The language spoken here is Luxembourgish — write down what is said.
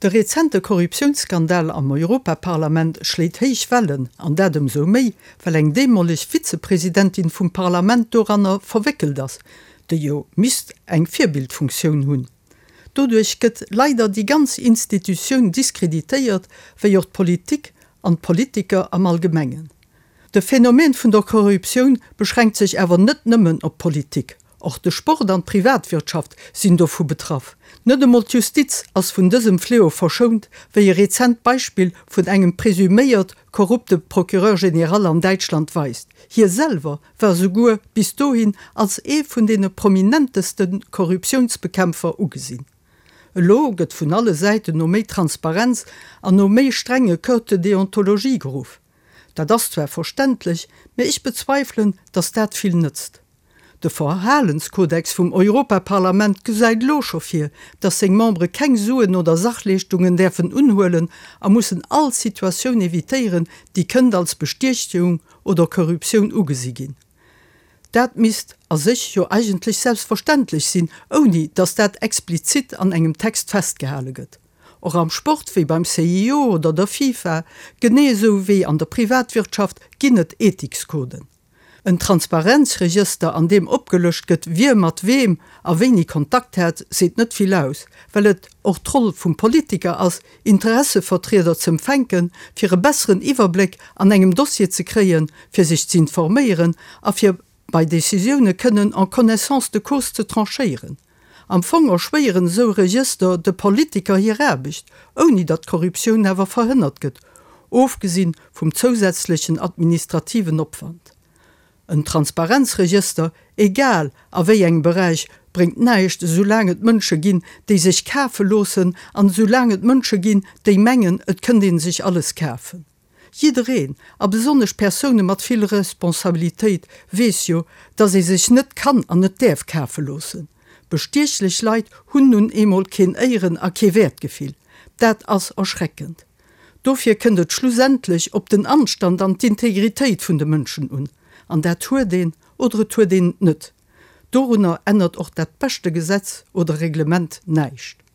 De rezente Korruptiounsskandal am Europaparlament schléit héich Wellen, an dat ëmsou méi, well eng deemoleg Vizepresidentin vum Parlament doranner verwéckelt ass, déi jo misst eng Virbildfunktioun hunn. Doduerch gëtt leider déi ganz Institutioun diskreditéiert, wéi och d'Politik an d'Politiker am Allgemengen. De Phänomen vun der Korruptioun beschränkt sech awer net nëmmen op d'Politik. Och de Sport an d'Privatwirtschaft sinn dovu betraff. Net emol d'Justiz ass vun dësem Fléau verschount, wéi e rezent Beispill vun engem presuméiert korrupte Procureur général an Däitschland weist. Hie selwer war souguer bis dohin als ee vun deene prominenteste Korruptiounsbekämpfer ugesinn. Elo gëtt vun alle Säiten no méi Transparenz an no méi strenge Codes de déontologie geruff. Dat ass zwar verständlech, mä ech bezweifelen, datt dat vill nëtzt. De Verhalenskodex vum Europaparlament gesäit elo scho vir, datt seng Membere keng Suen oder Sachleeschtungen däerfen unhuelen a mussen all Situatioun evitéieren, déi kënnt als Bestiechung oder Korruptioun ugesi ginn. Dat misst a sech jo eigentlech selbstverständlech sinn, ouni datt dat explizit an engem Text festgehale gëtt. Och am Sport, wéi beim CIO oder der FIFA, genee esou wéi an der Privatwirtschaft, ginn et Ethikskoden. En Transparenzregëster, an deem opgelëscht gëtt, wie mat weem a wéini Kontakt hat, seet net vill aus, well et och d'Roll vum Politiker ass, Interessevertrieder z'empfänken, fir e besseren Iwwerbléck an engem Dossier ze kréien, fir sech z'informéieren a fir bei Decisioune kënnen en connaissance de cause ze tranchéieren. Am Fong erschwéieren esou Regëster de Politiker hir Aarbecht, ouni datt Korruptioun awer verhënnert gëtt, ofgesinn vum zousätzlechen administrativen Opwand. En Transparenzregëster, egal a wéi engem Beräich, bréngt näischt, esoulaang et Mënsche ginn, déi sech kafe loossen, an esoulaang et Mënsche ginn, déi mengen, et kënnt ee sech alles kafen. Jiddereen, a besonnesch Persoune mat vill Responsabilitéit, weess jo, dass ee sech net kann an net däerf kafe loossen. Bestiechlech Leit hunn nun eemol keen Éieren a kee Wäertgefill. Dat ass erschreckend. Dofir kënnt et schlussendlech op den Anstand an d'Integritéit vun de Mënschen un. An dat huet een oder et huet een et net. Dorunner ännert och dat beschte Gesetz oder Reglement näischt.